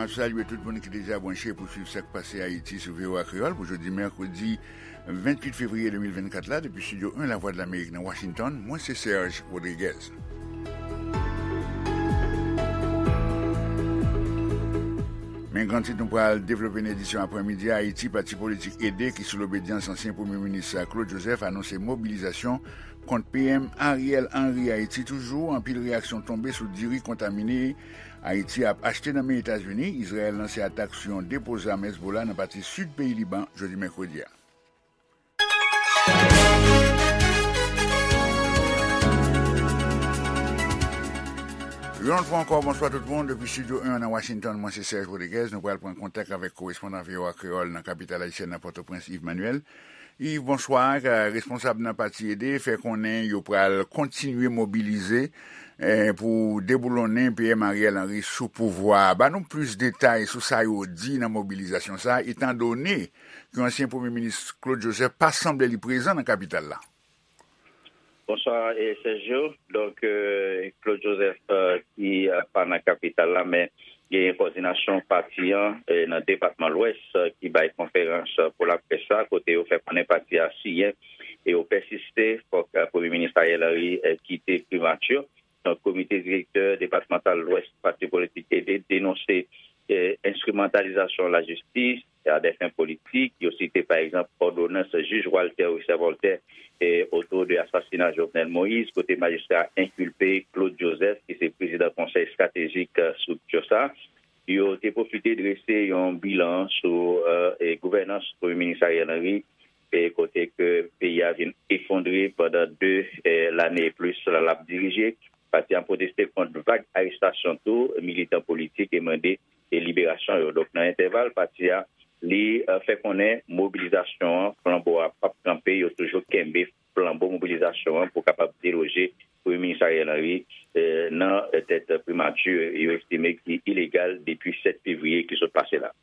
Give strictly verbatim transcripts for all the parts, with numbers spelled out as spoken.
Salye tout moun ki deja branche pou swiv sa k pase Ayiti sou V O A Kreyòl pou jodi mèkredi venntuit fevriye de mil vennkat la, depi Estidyo en Lavwadlamerik nan Washington. Mwen se Serge Rodriguez. Men gran tit nou pral devlope nan edisyon aprèmidi a. Ayiti, pati politik ede ki sou lobedyans ansyen Premye Minis Claude Joseph anonse mobilizasyon kont P M Ariel Henry. Ayiti toujou, anpil reyaksyon tonbe sou diri kontamine Ayiti ap achte nan men Etazini. Izrayèl lanse atak sou yon depo zam Hezbollah nan pati sid peyi Liban jodi mèkredi a. Yon lòt fwa ankò, bonswa tout moun. Depi Estidyo en nan Washington, mwen se Serge Rodriguez. Nou pral pran kontak avèk korespondan V O A Kreyòl nan kapital ayisyèn nan Pòtoprens, Yves Manuel. Yves, bonswa. Ka-, responsab nan pati ede fè konnen yo pral kontinye mobilize, eh, pou deboulonnen P M Ariel Henry sou pouvwa a. Ba nou plis detay sou sa yo di nan mobilizasyon sa a, etandone ke ansyen Premye Minis Claude Joseph pa sanble li prezan nan kapital la. Bonswa, eh, Sergio. Donk, eh, Claude Joseph, eh, ki, eh, pa nan kapital la, men genyen kòdinasyon pati an, eh, nan depatman Lwès, eh, ki bay konferans, eh, pou laprès la, kote yo fè konnen pati a siyen e yo pèsiste, fòk, eh, Premye Minis Ariel Henry, eh, kite primati. Donk, komite direktè depatmantal Lwès pati politik ede denonse, eh, enstrimantalizasyon lajistis a dè fen politik. Yo site, pa egzanp, òdonans jij Walter Richard Voltaire, eh, oto de asasina Jovenel Moïse, kote majistra enkilpe Claude Joseph, ki se prezidan konsèy estratejik, eh, estrikti sa. Yo te pwofite drese yon bilan sou, eh, eh, gouvènans Premye Minis Ariel Henry, eh, kote ke peyi a vin efondre pandan de, eh, lane e plis l ap dirije. Pati a pwoteste kont vag arestasyon tou militan politik e mande, eh, liberasyon yo. Donk, nan entèval, pati a, li, eh, fè konnen mobilizasyon an, flanbo a p ap kanpe, yo toujou kenbe flanbo mobilizasyon an pou kapab deloje Premye Minis Ariel Henry, eh, nan tèt primati yo estime ki ilegal depi sèt fevriye ki sot pase la.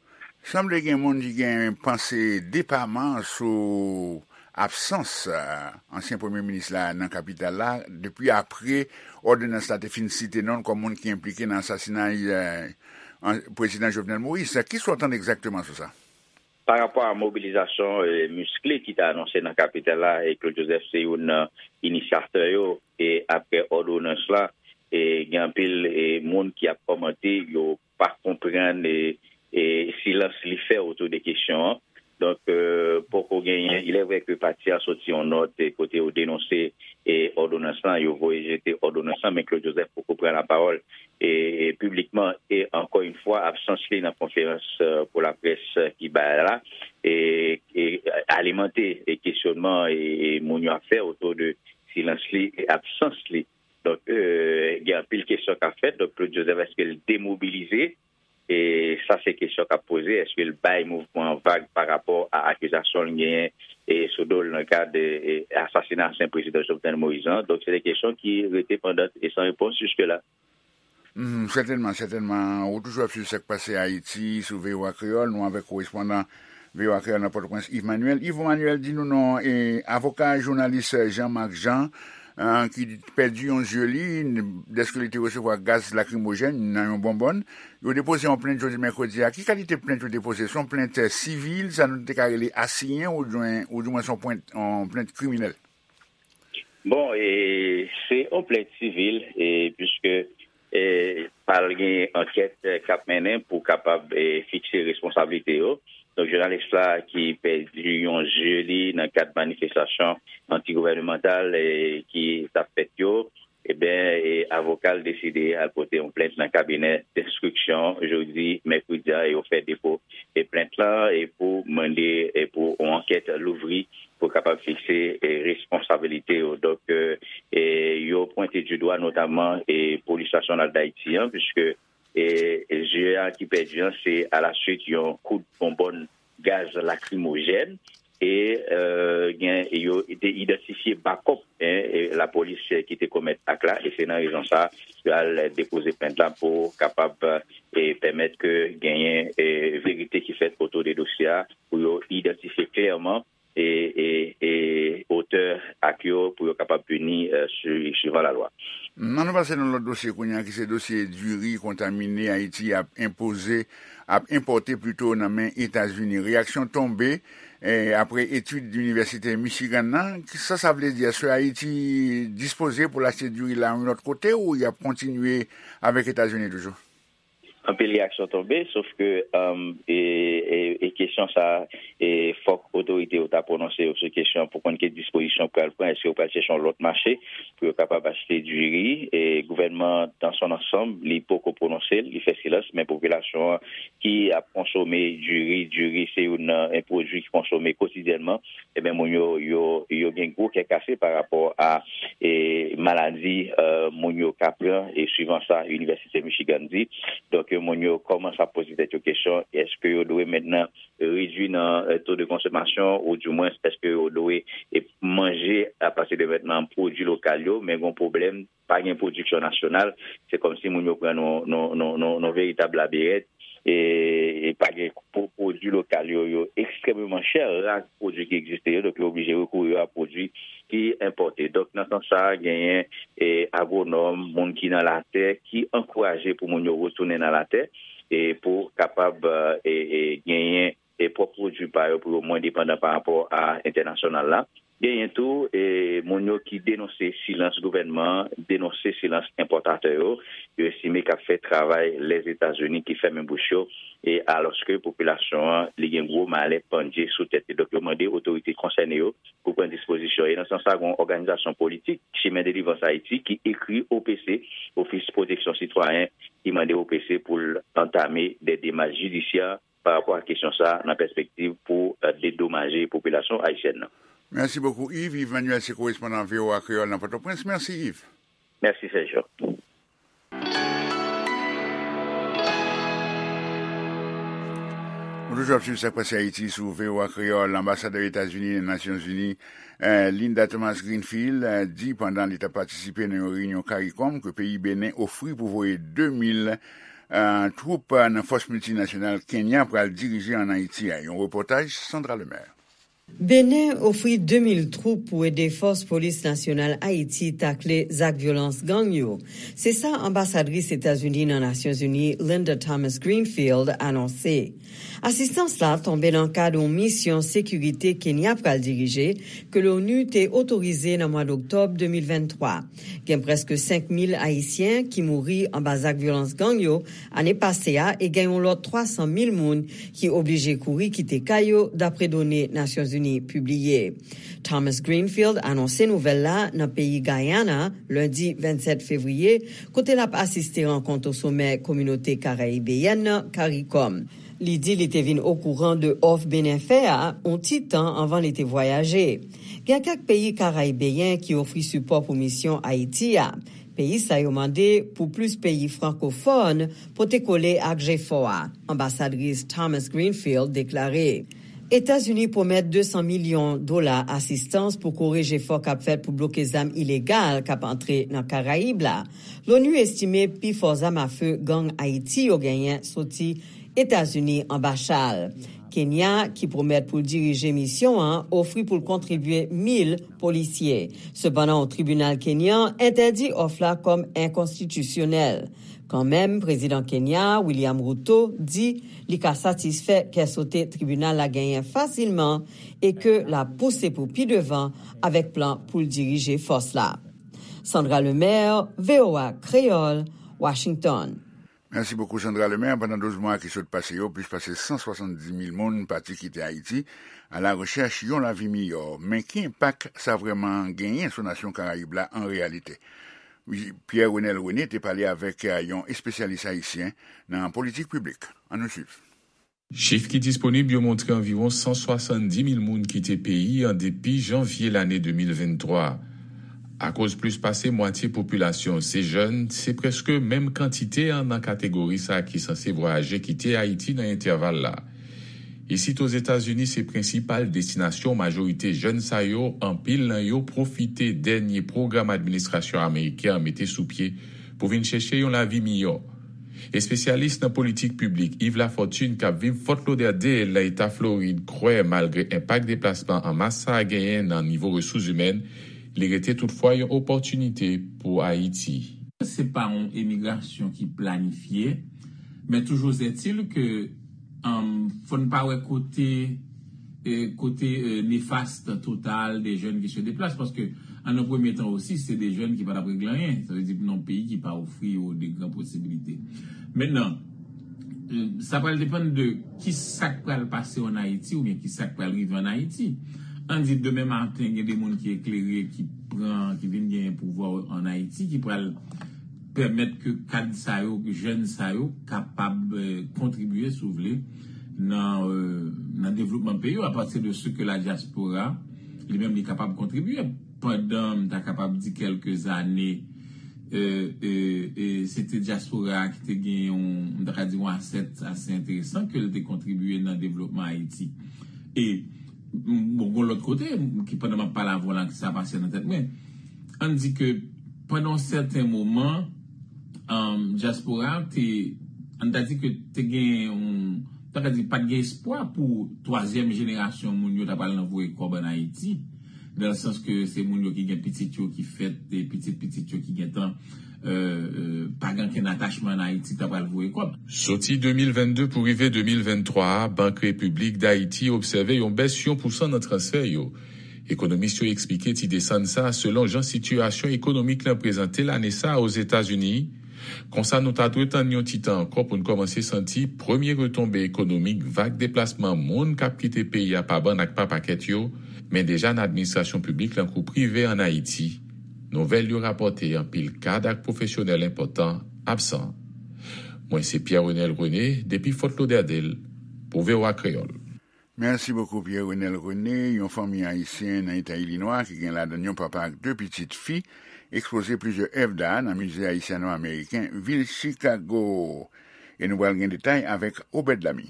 Sanble gen moun ki gen panse depaman sou absans, eh, ansyen premye minis la nan kapital la, depi apre òdonans la te fin site non l kòm moun ki enplike nan asasinay, eh, an-, prezidan Jovenel Moïse. Kisa w tande egzakteman sou sa? Pa rapò a mobilizasyon, eh, miskle ki te anonse nan kapital la, e Claude Joseph se youn nan inisyatè yo, e apre òdonans la, e gen anpil, e moun ki ap kòmante, yo pa konprann, e, e silans li fè otou de kesyon an. Donk, eh, poko genyen, il est vrai que pati a soti yon nòt, eh, kote yo denonse, eh, òdonans lan, yo voye jete òdonans lan, men Claude Joseph poko pran lapawòl, eh, eh, piblikman. E ankò yon fwa, absans li nan konferans, eh, pou laprès, eh, ki bay la, e, e alimante, e kesyonman, e, e moun yo ap fè otou de silans li e absans li. Donk, eh, gen anpil kesyon k ap fèt. Donk, Claude Joseph, èske l demobilize? E sa se kesyon k ap poze. Èske l bay mouvman an vag pa rapò a akizasyon l genyen, e sou do l nan kad, e, asasina ansyen prezidan Jovenel Moïse lan? Donk, se de kesyon ki rete pandan e san repons jiske la. Mhm, sètènman, sètènman. Ou toujou ap swiv sa k pase Ayiti sou V O A Kreyòl. Nou avèk korespondan V O A Kreyòl nan Pòtoprens, Yves Manuel. Yves Manuel, di nou non, e, avoka jounalis Jean Marc Jean, eh, ki pèdi yon zye li, dèske li te resevwa gaz lakrimojèn nan yon bonbòn. Yo depoze yon plent jodi mèkredi a. Ki kalite plent yo depoze? Se yon plent, eh, sivil, sa nou te ka rele asiyen, oudimwen, oudimwen se yon plent, yon plent kriminèl? Bon, e, se yon plent sivil, e, piske, e, pral gen ankèt, e, k ap mennen pou kapab, e, fikse responsablite yo. Donk, jounalis la ki pèdi yon zye li nan kad manifestasyon antigouvènemantal, e, ki t ap fèt yo, ebyen, e, avoka l deside al pote yon plent nan kabinè denstriksyon jodi mèkredi a, e yo fè depo, e, plent lan, e pou mande, e, pou yon ankèt louvri pou kapab fikse, e, responsabilite yo. Donk, e, e, yo pwente di dwa notaman, e, Polis Nasyonal Dayiti an, piske, e, e, zye a ki pèdi an, se alaswit yon kout bonbòn gaz lakrimojèn. E, e, gen, yo te idantifye bakòp, en, e, lapolis, e, ki te komèt ak la, e se nan rezon sa, yo al depoze plent la pou kapab, e, pèmèt ke genyen, e, verite ki fèt otou de dosye a, pou yo idantifye klèman e, e, e otè ak yo pou yo kapab pini, e, sui-, suivan lalwa. Ann nou pase nan lòt dosye kounye a, ki se dosye diri kontamine Ayiti ap enpoze, ap enpòte plito nan men Etazini. Reyaksyon tonbe, e, apre etid Inivèsite Michigan nan. Sa sa vle di? Èske Ayiti dispoze pou l achte diri la yon lòt kote ou y ap kontinye avèk Etazini toujou? Anpil reyaksyon tonbe, sof ke, um, e, e, e kesyon sa, e, fòk otorite yo ta pwononse yo sou kesyon pou konn ki dispozisyon yo pral pran, èske yo pral chèche yon lòt mache pou yo kapab achte diri. E gouvènman, dans son ensemble, li poko pwononse l, li fè silans, men popilasyon an ki ap konsome diri, diri se youn nan, e, pwodui ki konsome kotidyènman, ebyen, moun yo, yo, yo gen gwo kè kase pa rapò a, e, maladi, e, moun yo ka pran, e, suivan sa Inivèsite Michigan di. Donk, moun yo kòmanse ap poze tèt yo kesyon, èske yo dwe mentnan redui nan, e, to de konsomasyon, ou dimwens, èske yo dwe, e, manje apati de mentnan pwodui lokal yo, men gen pwoblèm, pa gen pwodiksyon nasyonal, se kòmsi moun yo pran nan, nan, nan, nan, nan veritab labirent, e, e pa gen pwo-, pwodui lokal yo, yo ekstrèmeman chè, ra pwodui ki egziste yo, donk yo oblije rekouri a pwodui ki enpòte. Donk, nan sans sa a, genyen, e, agwonòm, moun ki nan latè, ki ankouraje pou moun yo retounen nan latè, e pou kapab, e, e, genyen, e, pwòp pwodui pa yo, pou yo mwen depandan pa rapò a entènasyonal la. Genyen tou, e, moun yo ki denonse silans gouvènman an, denonse silans enpòtatè yo. Yo estime k ap fè travay Lèzetazini ki fèmen bouch yo, e alòske popilasyon an, li gen gwo malè pandye sou tèt li. Donk, yo mande otorite konsène yo pou pran dispozisyon. E nan sans sa, gen yon òganizasyon politik, Chemin Délivrance Haïti, ki ekri O P C, Ofis Pwoteksyon Sitwayen, ki mande O P C pou l antame de demach jidisyè pa rapò a kesyon sa a nan pèspektiv pou, e, dedomaje popilasyon ayisyèn nan. Mèsi bokou, Yves. Yves Manuel se korespondan V O A Kreyòl nan Pòtoprens. Mèsi, Yves. Mèsi, Sergio. Nou toujou ap swiv sa k pase Ayiti sou V O A Kreyòl. Anbasadè Etazini nan Nasyonzini, e, Linda Thomas Greenfield, e, di pandan li t ap patisipe nan yon reyinyon CARICOM ke peyi Benen ofri pou voye de mil, e, twoup, e, nan fòs miltinasyonal Kenya pral dirije ann Ayiti a. Yon repòtaj Sandra Lemaire. Benen ofri de mil twoup pou ede Fòs Polis Nasyonal Ayiti takle zak vyolans gang yo. Se sa anbasadris Etazini nan Nasyonzini, Linda Thomas Greenfield, anonse. Asistans la tonbe nan kad yon misyon sekirite Kenya pral dirije, ke l'ONU te otorize nan mwa doktòb de mil venntwa. Gen prèske senk mil Ayisyen ki mouri anba zak vyolans gang yo ane pase a e gen yon lòt twa san mil moun ki oblije kouri kite kay yo, dapre done Nasyonzini pibliye. Thomas Greenfield anonse nouvèl la nan peyi Guyana, lendi vennsèt fevriye, kote l ap asiste rankont o somè Kominote Karayibeyèn nan, CARICOM. Li di li te vin okouran de òf Benen fè a yon ti tan anvan li te vwayaje. Gen kèk peyi karayibeyen ki ofri sipò pou misyon Ayiti a. Peyi sa yo mande pou plis peyi frankofòn pote kole ak jefò a, anbasadris Thomas Greenfield deklare. Etazini pwomèt de san milyon dola asistans pou kore jefò k ap fèt pou bloke zam ilegal k ap antre nan Karayib la. L'ONU estime pi fò zam afe gang Ayiti yo genyen soti Etazini anba chal. Kenya, ki pwomèt pou l dirije misyon an, ofri pou l kontribye mil polisye. Sepandan, yon tribinal kenyan entèdi òf la kòm enkonstitisyonèl. Kanmenm, prezidan Kenya, William Ruto, di li ka satisfè kè sote tribinal la genyen fasilman e ke l ap pouse pou pi devan avèk plan pou l dirije fòs la. Sandra Lemaire, V O A Kreyòl, Washington. Mèsi bokou, Sandra Lemaire. Pandan douz mwa ki sot pase yo, plis pase san swasanndis mil moun pati kite Ayiti a la rechèch yon lavi miyò. Men ki enpak sa vrèman genyen sou nasyon Karayib la an reyalite? Pierre Renel René te pale avèk, eh, yon espesyalis ayisyen nan politik piblik. Ann nou swiv. Chif ki disponib yo montre anviwon san swasanndis mil moun kite peyi an depi janvye lane de mil venntwa. Akoz plis pase mwatye popilasyon se jèn, se prèske menm kantite an nan kategori sa ki sanse vwayaje kite Ayiti nan entèval la. Isit Ozetazini se prensipal destinasyon majorite jèn sa yo, anpil nan yo pwofite dènye pwogram administrasyon ameriken an mete sou pye pou vin chèche yon lavi miyò. Espesyalis nan politik piblik Yves Lafortune, k ap viv Fort Lauderdale, nan eta Florid, kwè malgre enpak deplasman an mas sa a genyen nan nivo resous imèn, li rete toutfwa yon opòtinite pou Ayiti. Se pa yon emigrasyon ki planifye, men toujours est-il que, um, fò n pa wè kote, eh, kote, eh, nefast total des jeunes qui se déplacent, paske an nan premye tan osi, se de jèn ki pa t ap regle anyen. Sa vle di, nan yon peyi ki pa ofri yo de gran posibilite. Mentnan, eh, sa pral depann de ki sa k pral pase an Ayiti oubyen ki sa k pral rive an Ayiti. Ann di, demen maten, gen de moun ki eklere, ki pran, ki vin genyen pouvwa an Ayiti, ki pral pèmèt ke kad sa yo, ke jèn sa yo kapab, eh, kontribye, si w vle, nan, eh, nan devlopman peyi yo, apati de se ke la diaspora, li menm, li kapab kontribye. Pandan, m ta kapab di, kèlke zane, eh, eh, eh, se te dyaspora a ki te gen yon, m ta ka di, yon asèt ase enteresan ke l te kontribye nan devlopman Ayiti. E, m, bon, gon lòt kote, m, ki pandan m ap pale avè w la, ki sa pase nan tèt mwen. Ann di ke pandan yon sèten moman, um, dyaspora a te, ann ta di ke te gen yon, ta ka di, pa t gen espwa pou twazyèm jenerasyon moun yo ta pral nan voye kòb ann Ayiti, nan sans ke se moun yo ki gen pitit yo ki fèt, e pitit pitit yo ki gentan, euh, euh, pa gen okenn atachman ann Ayiti, ta pral voye kòb. Soti de mil venn de pou rive de mil venn twa a, Bank Repiblik Dayiti obsève yon bès yon pousan nan transfè yo. Ekonomis yo eksplike ti desann sa a selon jan sitiyasyon ekonomik lan prezante l ane sa a Ozetazini. Konsa, nou ta dwe tann yon ti tan ankò pou n kòmanse santi premye retonbe ekonomik vag deplasman moun k ap kite peyi a pa bann ak pa pakèt yo, men deja nan administrasyon piblik lan kou prive ann Ayiti. Nouvèl yo rapòte anpil kad ak pwofesyonèl enpòtan absan. Mwen se Pierre Renel René, depi Fort Lauderdale, pou V O A Kreyòl. Merci beaucoup, Pierre Renel René. Yon fanmi ayisyen nan eta Ilinwa ki gen ladan l yon papa ak de pitit fi ekspoze plizyè èv da nan Mize Ayisyano-Ameriken vil Chicago. E nou pral gen detay avèk Obed Lamy.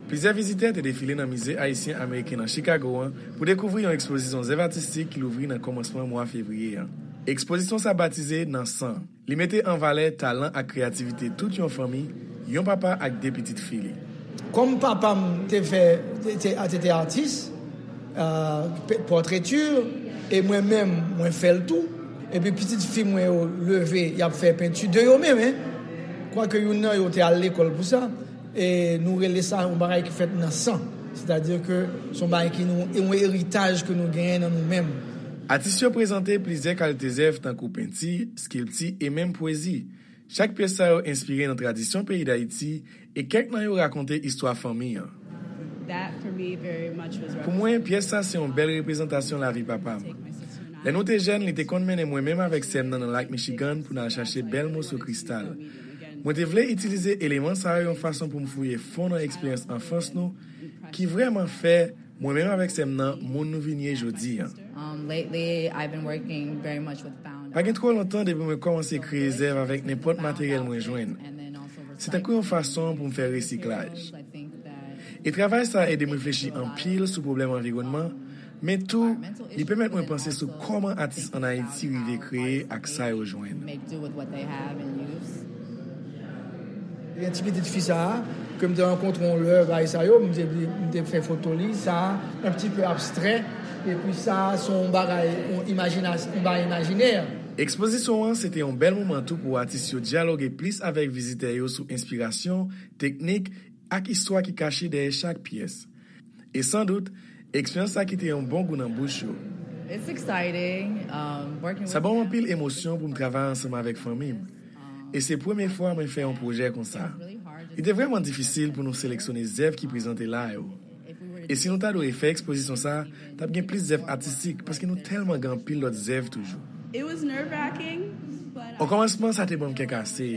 Plizyè vizitè te defile nan Mize Ayisyen Ameriken nan Chicago an pou dekouvri yon ekspozisyon zèv atistik ki louvri nan kòmansman mwa fevriye an. Ekspozisyon sa batize Nan San. Li mete an valè talan ak kreyativite tout yon fanmi, yon papa ak de pitit fi li. Kòm papa m te fè, te, te, te, te atis, euh, pe- portraiture, e mwen menm, mwen fè l tou. Epi pitit fi mwen yo leve, y ap fè penti de yo menm, en. Kwake youn nan yo te al lekòl pou sa. E nou rele sa yon bagay ki fèt nan san. Sètadi ke se yon bagay ki nou, yon eritaj ke nou genyen nan nou menm. Atis yo prezante plizyè kalite zèv tankou penti, skilpti e menm pwezi. Chak pyès sa yo enspire nan tradisyon peyi Dayiti e kèk nan yo rakonte istwa fanmi an. Pou mwen, pyès sa se yon bèl reprezantasyon lavi papa m. Lè nou te jèn, li te konn mennen mwen menm avèk sè m nan nan Lak Michigan pou n al chache bèl moso kristal. Mwen te vle itilize eleman sa yo yon fason pou m fouye fon nan eksperyans anfans nou, ki vrèman fè mwen menm avèk sè m nan moun nou vin ye jodi an. Um, lately, I've been working very much with found Pa gen twò lontan depi mwen kòmanse kreye zèv avèk nenpòt materyèl mwen jwenn. Se tankou yon fason pou m fè resiklaj. E travay sa a ede m reflechi anpil sou pwoblèm anviwònman, men tou, li pèmèt mwen panse sou kòman atis ann Ayiti rive kreye ak sa yo jwenn. Gen ti pitit fi sa a, ke m te rankontre yon lè, bagay sa yo, m te, m te fè foto li, sa a, un petit peu abstrait, epi sa a, se yon bagay, yon imajinas-, yon bagay imajinè. Ekspozisyon an, se te yon bèl moman tou pou atis yo dyaloge plis avèk vizitè yo sou enspirasyon, teknik, ak istwa ki kache dèyè chak pyès. E san dout, eksperyans sa kite yon bon gou nan bouch yo. It's exciting, um, working with Sa ban m anpil emosyon pou m travay ansanm avèk fanmi m. E se premye fwa mwen fè yon pwojè konsa. Li te vrèman difisil pou nou seleksyone zèv ki prezante la yo. E si nou ta dwe refè ekspozisyon sa, t ap gen plis zèv atistik, paske nou tèlman gen anpil lòt zèv toujou. It was nerve-wracking, but O kòmansman, sa te ban m kè kase.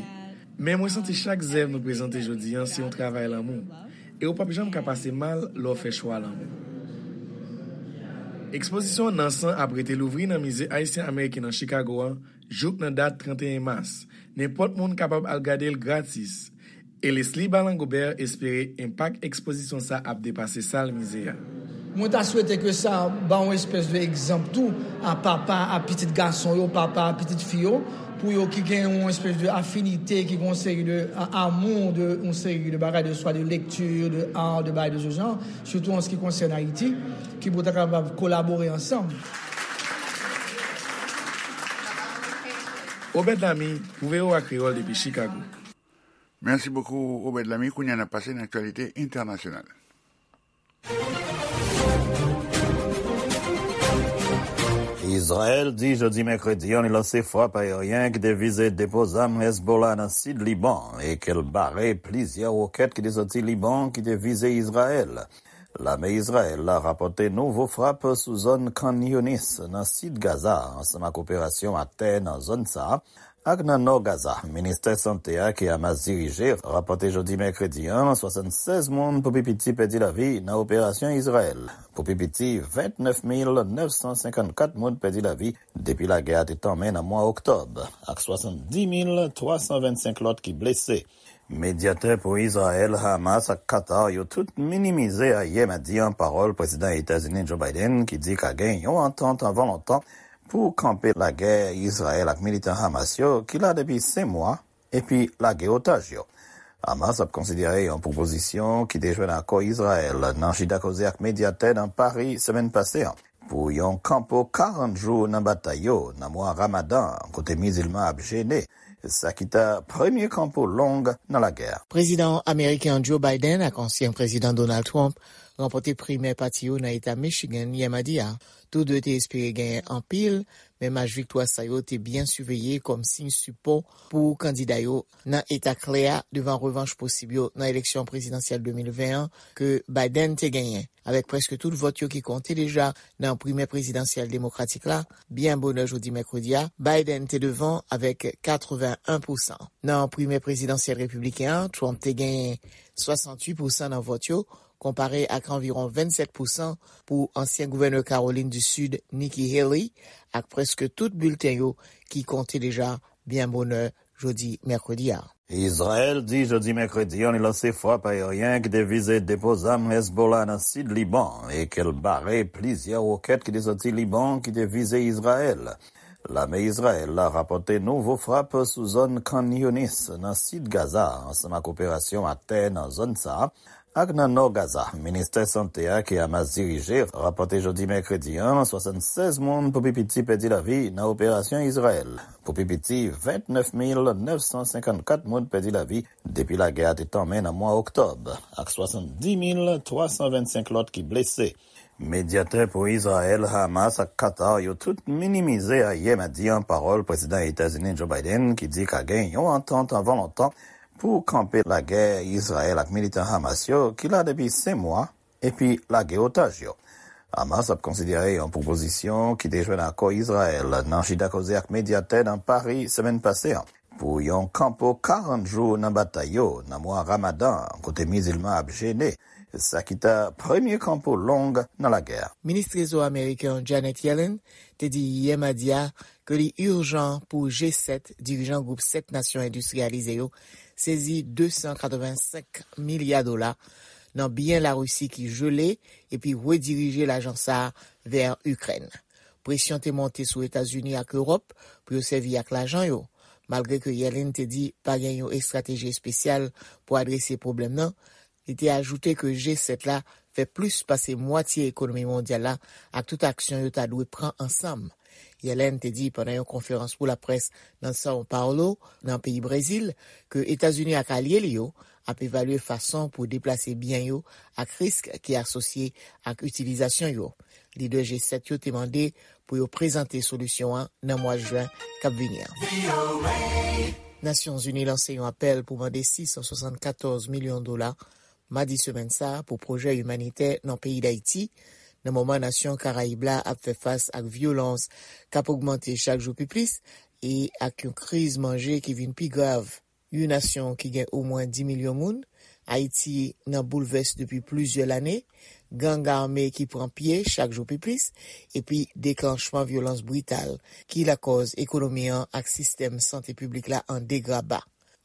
Men mwen santi chak zèv nou prezante jodi an se yon travay lanmou. E ou p ap janm ka pase mal lè w fè chwa lanmou. Ekspozisyon Nan San ap rete louvri nan Mize Ayisyen Ameriken nan Chicago an jouk nan dat trannteyen mas. Nenpòt moun kapab al gade l gratis. E Leslie Balangobert espere enpak ekspozisyon sa ap depase sal mize a. Mwen ta swete ke sa ba yon espès de egzanp tou a papa, a pitit gason yo, papa, a pitit fi yo, Pou yo ki gen yon espèce de affinité, ki gen yon seri de a- amour de yon seri de bagay, de soit de lecture, de art, de bagay de ce genre, surtout en ce qui concerne Haïti, ki pou ta kapab kolabore ansanm. Obed Lamy pou V O A Kreyòl depi Chicago. Merci beaucoup, Obed Lamy. Kounye a n ap pase nan aktyalite entènasyonal. Izrayèl di jodi mèkredi an li lanse frap ayeryen ki te vize depo zam Hezbollah nan sid Liban e ke l bare plizyè wokèt ki te soti Liban ki te vize Izrayèl. Lame Izrayèl la rapòte nouvo frap sou zòn Khan Younis nan sid Gaza ansanm ak operasyon atè nan zòn sa a ak nan nò Gaza. Ministè Sante a ke Hamas dirije rapòte jodi mèkredi an swasannsèz moun pou pi piti pèdi lavi nan operasyon Izrayèl. Pou pi piti vennèf mil nèf san senkannkat moun pèdi lavi depi lagè a te tanmen nan mwa oktòb, ak swasanndis mil twa san vennsenk lòt ki blese. Medyatè pou Izrayèl, Hamas ak Qatar yo tout minimize ayè madi an pawòl Prezidan Etazini Joe Biden ki di ka gen yon antant anvan lontan pou kanpe lagè Izrayèl ak militan Hamas yo ki la depi senk mwa epi lage otaj yo. Hamas ap konsidere yon pwopozisyon ki te jwenn akò Izrayèl nan chita koze ak medyatè nan Pari semèn pase an pou yon kanpo karant jou nan batay yo nan mwa Ramadan an kote mizilman ap jene, sa ki ta premye kanpo long nan lagè a. Prezidan ameriken an Joe Biden ak ansyen Prezidan Donald Trump ranpòte primè pati yo nan eta Michigan yè madi a. Tou de te espere genyen anpil, men mach viktwa sa yo te byen siveye kòm siy sipò pou kandida yo nan eta klè a devan revanch posib yo nan eleksyon prezidansyèl de mil ven an ke Biden te genyen. Avèk prèske tout vòt yo ki konte deja nan primè prezidansyèl demokratik la, byen bonè jodi mèkredi a, Biden te devan avèk katreven en pousan. Nan primè prezidansyèl repibliken an, Trump te genyen swasanntuit pousan nan vòt yo, konpare ak anviwon vennsèt pousan pou ansyen gouvènè Kawolin di Sid, Nikki Haley, ak prèske tout bilten yo ki konte deja byen bonè jodi mèkredi a. Izrayèl di jodi mèkredi an li lanse frap ayeryen ki te vize depo zam Hezbollah nan sid Liban e ke l bare plizyè wokèt ki te soti Liban ki te vize Izrayèl. Lame Izrayèl la rapòte nouvo frap sou zòn Khan Younis nan sid Gaza ansanm ak operasyon atè nan zòn sa a ak nan nò Gaza. Ministè Sante a ke Hamas dirije rapòte jodi mèkredi an swasannsèz moun pou pi piti pèdi lavi nan operasyon Izrayèl. Pou pi piti vennèf mil nèf san senkannkat moun pèdi lavi depi lagè a te tanmen nan mwa oktòb, ak swasanndis mil twa san vennsenk lòt ki blese. Medyatè pou Izrayèl, Hamas ak Qatar yo tout minimize ayè madi an pawòl Prezidan Etazini Joe Biden ki di ka gen yon antant anvan lontan pou kanpe lagè Izrayèl ak militan Hamas yo ki la depi senk mwa epi lage otaj yo. Hamas ap konsidere yon pwopozisyon ki te jwenn akò Izrayèl nan chita koze ak medyatè nan Pari semèn pase an pou yon kanpo karant jou nan batay yo nan mwa Ramadan an kote mizilman ap jene, sa ki ta premye kanpo long nan lagè a. Minis Trezò ameriken an Janet Yellen te di yè madi a ke li ijan pou G sèt, dirijan gwoup sèt nasyon endistriyalize yo, sezi de san katrevensenk milya dola nan byen Larisi ki jele epi redirije lajan sa a vè Ikrèn. Presyon te monte sou Etazini ak Ewòp pou yo sèvi ak lajan yo. Malgre ke Yellen te di pa gen yon estrateji espesyal pou adrese pwoblèm nan, li te ajoute ke G sèt la fè plis pase mwatye ekonomi mondyal la ak tout aksyon yo ta dwe pran ansanm. Yellen te di pandan yon konferans pou laprès nan São Paulo, nan peyi Brezil, ke Etazini ak alye li yo ap evalye fason pou deplase byen yo ak risk ki asosye ak itilizasyon yo. Lidè G sèt yo te mande pou yo prezante solisyon an nan mwa jen k ap vini an. Nasyonzini lanse yon apèl pou mande sis san swasannkatòz milyon dola madi semèn sa a pou pwojè imanitè nan peyi Dayiti, nan moman nasyon Karayib la ap fè fas ak vyolans k ap ogmante chak jou pi plis e ak yon kriz manje ki vin pi grav. Yon nasyon ki gen omwen dis milyon moun, Ayiti nan boulvès depi plizyè lane, gang ame ki pran pye chak jou pi plis, epi deklanchman vyolans brital ki lakòz ekonomi an ak sistèm sante piblik la an degraba.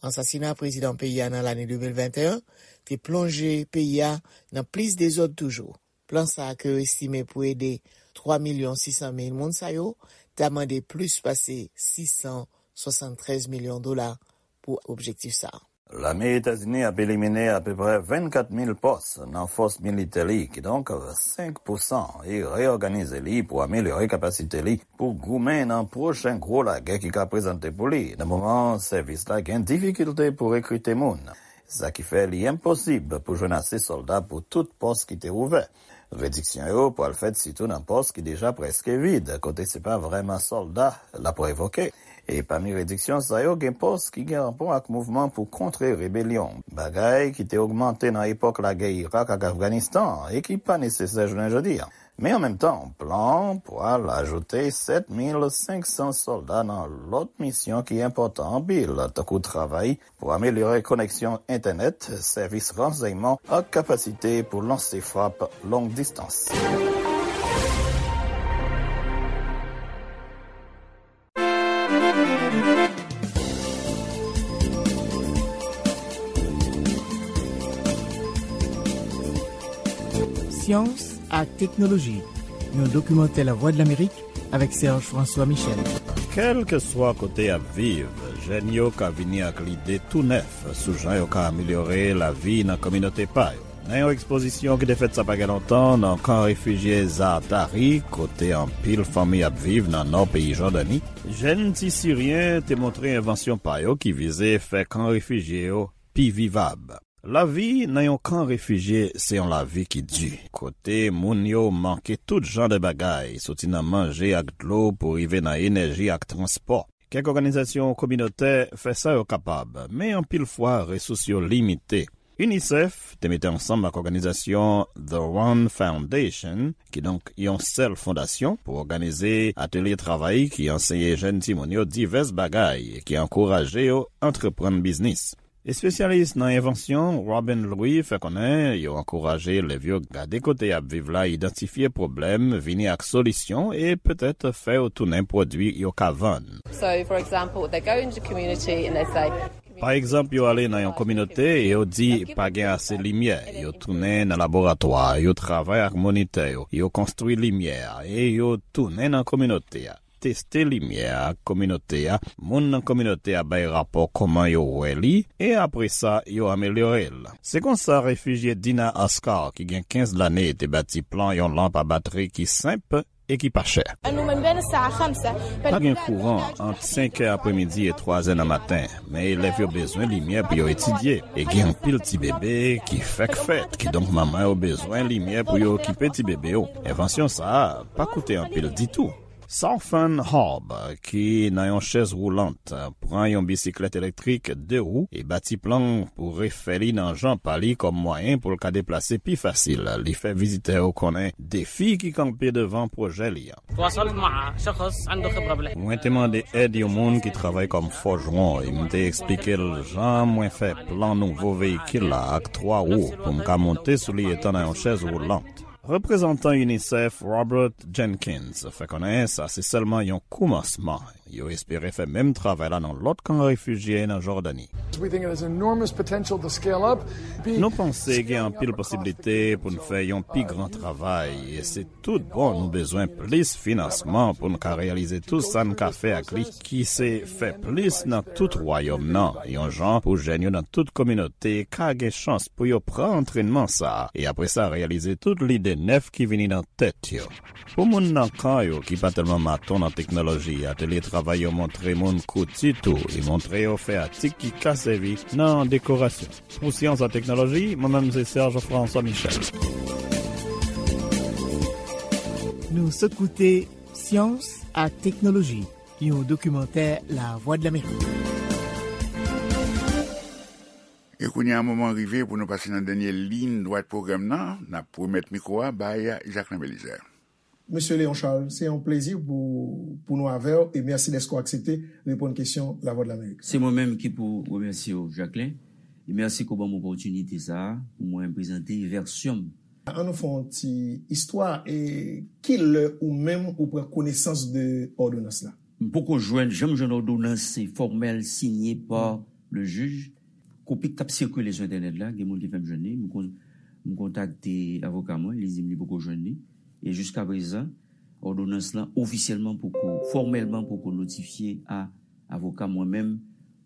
Ansasina prezidan peyi a nan lane de mil venteyen te plonje peyi a nan plis dezòd toujou. Plan sa a ke yo estime pou ede twa milyon sis san mil moun sa yo ta mande plis pase sis san swasanntrèz milyon dola pou objektif sa a. Lame Etazini ap elimine apeprè vennkat mil pòs nan fòs militè li, kidonk senk pousan, e reyòganize li pou amelyore kapasite li pou goumen nan pwochen gwo lagè ki ka prezante pou li, nan moman sèvis la gen difikilte pou rekrite moun. Sa ki fè li enposib pou jwenn ase sòlda pou tout pòs ki te ouvè. Rediksyon yo pral fèt sitou nan pòs ki deja prèske vid, kote se pa vrèman sòlda l ap revoke. E pami rediksyon sa yo, gen pòs ki gen rapò ak mouvman pou kontre rebelyon, bagay ki te ogmante nan epòk lagè Irak ak Afganistan e ki pa nesesè jounen jodi a. Men an menm tan, plan an pral ajoute sèt mil senk san sòlda nan lòt misyon ki enpòtan anpil, tankou travay pou amelyore koneksyon entènèt, sèvis ransèyman ak kapasite pou lanse frap long distans. Syans ak teknoloji, yon dokimantè Lavwadlamerik avèk Serge François Michel. Kèlkeswa kote y ap viv, jèn yo ka vini ak lide tou nèf sou jan yo ka amelyore lavi nan kominote pa yo. Nan yon ekspozisyon ki te fèt sa pa gen lontan nan kan refijye Zaatari, kote anpil fanmi ap viv nan nò peyi Jòdani, jèn ti Siryen te montre envansyon pa yo ki vize fè kan refijye yo pi vivab. Lavi nan yon kan refijye se yon lavi ki di, kote moun yo manke tout jan de bagay, soti nan manje ak dlo pou rive nan enèji ak transpò. Kèk òganizasyon kominotè fè sa yo kapab, men anpil fwa resous yo limite. UNICEF te mete ansanm ak òganizasyon The One Foundation, kidonk yon sèl fondasyon, pou òganize atelye travay ki anseye jèn timoun yo divès bagay e ki ankouraje yo antreprann biznis. Espesyalis nan envansyon Robin Louis fè konnen yo ankouraje elèv yo gade kote y ap viv la, idantifye pwoblèm, vini ak solisyon e petèt fè yo tounen pwodui yo ka vann. So, for example, they go into community and they say, Pa egzanp, yo ale nan yon kominote e yo di pa gen ase limyè. Yo tounen nan laboratwa, yo travay ak monitè yo, yo konstwi limyè a e yo tounen nan kominote a. Teste limyè a ak kominote a, moun nan kominote a bay rapò kòman yo wè li, e apre sa, yo amelyore l. Se konsa refijye Dina Askar, ki gen kenz lane, te bati plan yon lanp a batri ki senp e ki pa chè. Pa gen kouran ant senk è apremidi e twa è nan maten, men elèv yo bezwen limyè pou yo etidye, e gen anpil ti bebe ki fèk fèt, kidonk manman yo bezwen limyè pou yo okipe ti bebe yo. Envansyon sa a pa koute anpil ditou. Sarfan Harb, ki nan yon chèz woulant, pran yon bisiklèt elektrik de wou e bati plan pou refè li nan jan pa li kòm mwayen pou l ka deplase pi fasil. Li fè vizitè yo konnen defi ki kanpe devan pwojè li an. تواصلت مع شخص عنده خبرة بالحفر. Mwen te mande èd yon moun ki travay kòm fòjwon e m te eksplike l jan mwen fè plan nouvo veyikil la ak twa wou pou m ka monte sou li etan nan yon chèz woulant. Reprezantan UNICEF Robert Jenkins fè konnen sa se sèlman yon koumansman. Yo espere fè menm travay la nan lòt kan refijye nan Jòdani. We think it has enormous potential to scale up. Nou panse gen anpil posiblite pou n fè yon pi gran travay, e se tout bon nou bezwen plis finansman pou n ka reyalize tout sa n ka fè ak li, ki se fè plis nan tout wayòm nan, yon jan pou jèn yo nan tout kominote ka gen chans pou yo pran antrènman sa a, e apre sa reyalize tout lide nèf ki vini nan tèt yo. Pou moun nan kan yo ki pa tèlman maton nan teknoloji, atelye travay yo montre moun kouti tou e montre yo fè atik ki ka sèvi nan dekorasyon. Pou Syans ak Teknoloji, mwen menm se Serge François Michel. Nou sot koute Syans ak Teknoloji, yon dokimantè Lavwadlamerik. E kounye a, moman rive pou nou pase nan dènye liy dwat pwogram nan. N ap remèt mikwo a bay Jacquelin Belizaire. Mesye Léon Charles, se yon plezi pou, pou nou avè w e mèsi dèske w aksepte reponn kesyon Lavwadlamerik. Se mwen menm ki pou remèsye w, Jacquelin, e mèsi ke w ban m opòtinite sa a pou mwen prezante vèsyon m. An nou fè yon ti istwa, e ki lè ou menm ou pran konesans de òdonans la? M poko jwenn, janm jwenn òdonans fòmèl sinye pa le jij. Kopi k ap sikile sou entènèt la, gen moun ki fè m jwenn li, m kon-, m kontakte avoka mwen, li di m li poko jwenn li. E jiskaprezan, òdonans lan ofisyèlman poko, fòmèlman poko notifye a avoka mwen menm,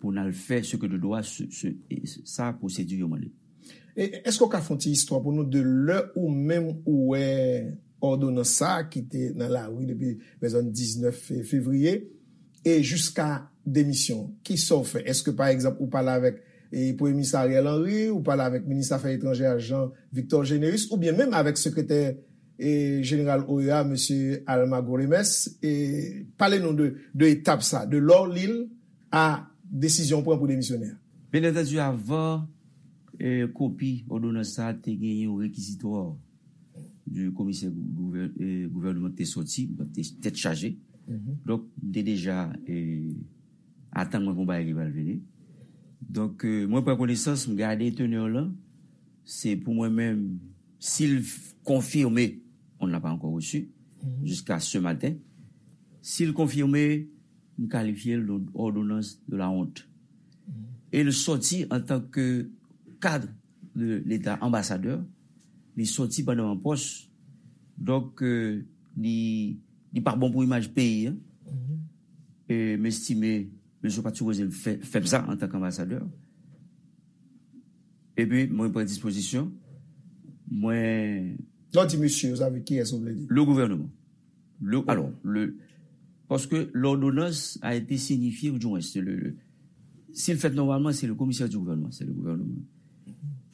pou n al fè ce que de droit, se, se, e sa pwosedi yo mande. E èske w ka fè yon ti istwa pou nou de lè ou menm ou wè òdonans sa a ki te nan lari depi, pèzòn, diznèf fe-, fevriye e jiska demisyon? Kisa w fè? Èske, pa egzanp, ou pale avèk, e, Premye Minis Ariel Henry, ou pale avèk Minis Afè Etranjè a, Jean Victor Généus, oubyen menm avèk Sekretè, e, Jeneral O E A, Mesye Almagro Lemes? E pale nou de, de etap sa, de lè w li l a desizyon w pran pou demisyone a. Byen antandi, avan, e, kopi òdonans sa a te gen yon rekizitwa di komisè gouvè-, e, gouvènman te sòti, te tèt chaje. Donk, m te deja, e, atann mwen pou bagay ki pral vini. Donk, e, mwen pran konesans, m gade teneur lan, se pou mwen menm, si l f-, konfime, on ne l'a pas encore reçu, jusqu'à ce matin. Si l konfime, m kalifye l de ordonnance de la honte. E l sòti antanke kad de Leta, anbasadè, li sòti pandan m an pòs. Donk, e, li, li pa bon pou imaj peyi a. E m estime, mesye pa t sipoze fè, fè m sa antanke anbasadè. Epi, mwen pran dispozisyon. Mwen Lè w di mesye, sa vle, kiyès ou vle di? Le gouvernement. Le, alors, le, parce que l'ordonnance a été signifiée, ou du moins, c'est le, le, si l fèt nòmalman, se le komisè di gouvènman, se le gouvènman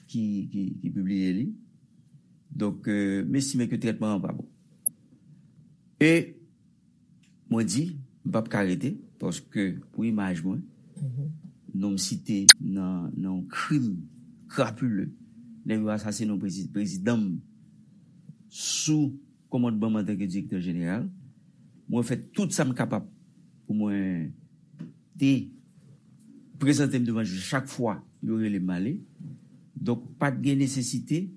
ki, ki, ki pibliye li. Donk, euh, m estime ke trètman an pa bon. E mwen di, m p ap ka rete, paske pou imaj mwen, non m site nan, nan yon krim krapile, nèg yo asasinen yon prezi-, prezidan m sou kòmandman m antanke direktè jeneral. Mwen fè tout sa m kapab pou mwen te prezante m devan jij chak fwa yo rele m ale. Donk, pa t gen nesesite,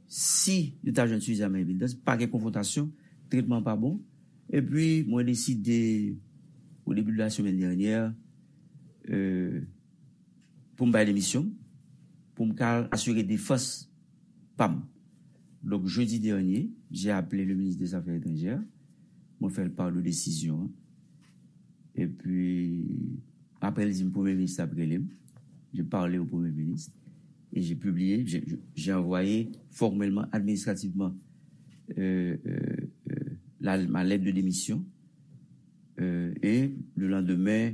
si yo ta jwenn sifizaman evidans, pa gen konfwontasyon, trètman pa bon. Epi, mwen deside, au début de la semaine dernière, euh, pou m bay demisyon m, pou m ka al asire defans pa m. Donk, jeudi dernier, j'ai appelé le ministre des Affaires étrangères. Mwen fè l part de desizyon an. Epi, apre, l di m Premye Minis ap rele m. J'ai parlé au Premier ministre et j'ai publié, j'ai, j'ai envoyé formellement, administrativement, euh, euh, euh, la, ma lettre de démission. Euh, et le lendemain,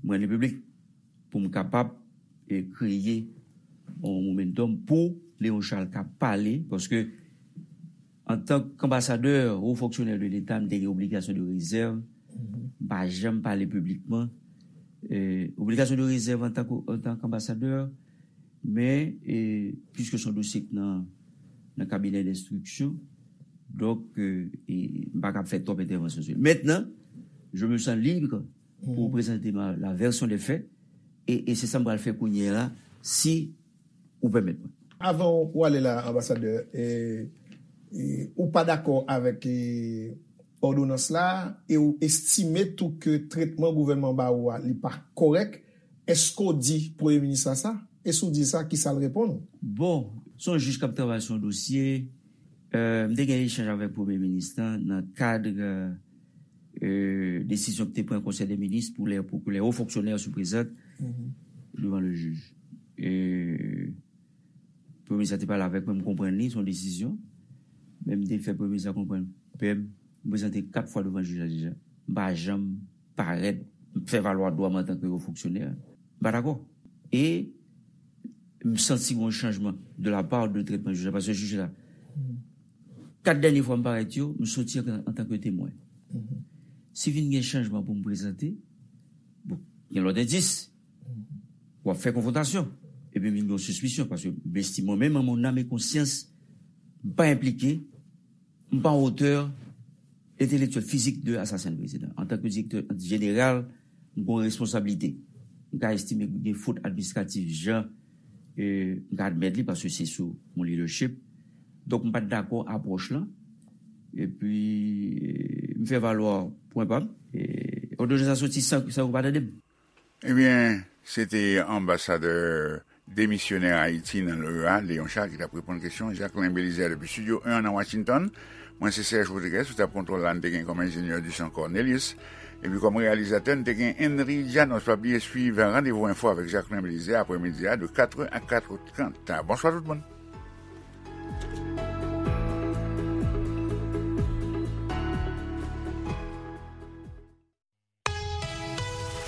mwen rele piblik pou m kapab, e, kreye yon momentum pou Léon Charles ka pale, paske antanke anbasadè, wo fonksyonè de Leta, m te gen obligasyon de rezèv, m pa janm pale piblikman. E, obligasyon de rezèv antanke, antanke anbasadè, men, e, piske se yon dosye k nan, nan kabinè denstriksyon, donk, e, e, m pa kab fè twòp entèvansyon sou li. Mentnan, je me sens libre pour présenter ma, la version des faits. E, e se sa m pral fè kounye a la, si ou pèmèt mwen. Avan w ale la, anbasadè, e, e, ou pa dakò avèk, e, òdonans la, e ou estime tou ke trètman gouvènman ba ou a, li pa kòrèk, èske w di Premye Minis la sa? E si w di l sa, kisa l reponn ou? Bon, se yon jij k ap travay sou yon dosye. Euh, m te gen echanj avèk Premye Minis lan nan kad, euh, desizyon ki te pran Konsèy de Minis pou lè, pou ke lè wo fonksyonè se prezante devan le jij. E Premye Minis la te pale avèk mwen, m konprann li, se yon desizyon. Men m te fè Premye Minis la konprann, pè m, m prezante kat fwa devan jij la deja. M pa janm parèt, m fè valwa dwa m antanke wo fonksyonè. M pa dakò. E m santi gon chanjman de la part de trètman jij la, paske jij la, kat dènye fwa m parèt yo, m soti an, antanke temwen. Si vin gen chanjman pou m prezante, bon, gen lòt endis, w ap fè konfwontasyon. Epi vin gen yon sispisyon, paske m estime mwen menm, an mon âme et conscience, m pa enplike, m pa otè entelektyèl, fizik de asasen prezidan. Antanke direktè jeneral, m gen yon responsablite. M ka estime gen fot administratif, jan, e, m ka admèt li, paske se sou mon leadership. Donk, m pa t dakò apwòch lan. Epi, e, m fè valwa pwen pa m. E, òdonans la soti san, san yo pa tande m. Ebyen, se te anbasadè demisyonè Ayiti nan l'O E A, Léon Charles, ki t ap reponn kesyon Jacquelin Belizaire depi Estidyo en nan Washington. Mwen se Serge Rodriguez, sou tab kontwòl la, n te gen kòm enjenyè Duchamp Cornelius. Epi kòm reyalizatè, n te gen Henry Janos. Pa bliye swiv Randevou Enfo avèk Jacquelin Belizaire aprèmidi a de katrè a katrè trant. Bonswa tout moun.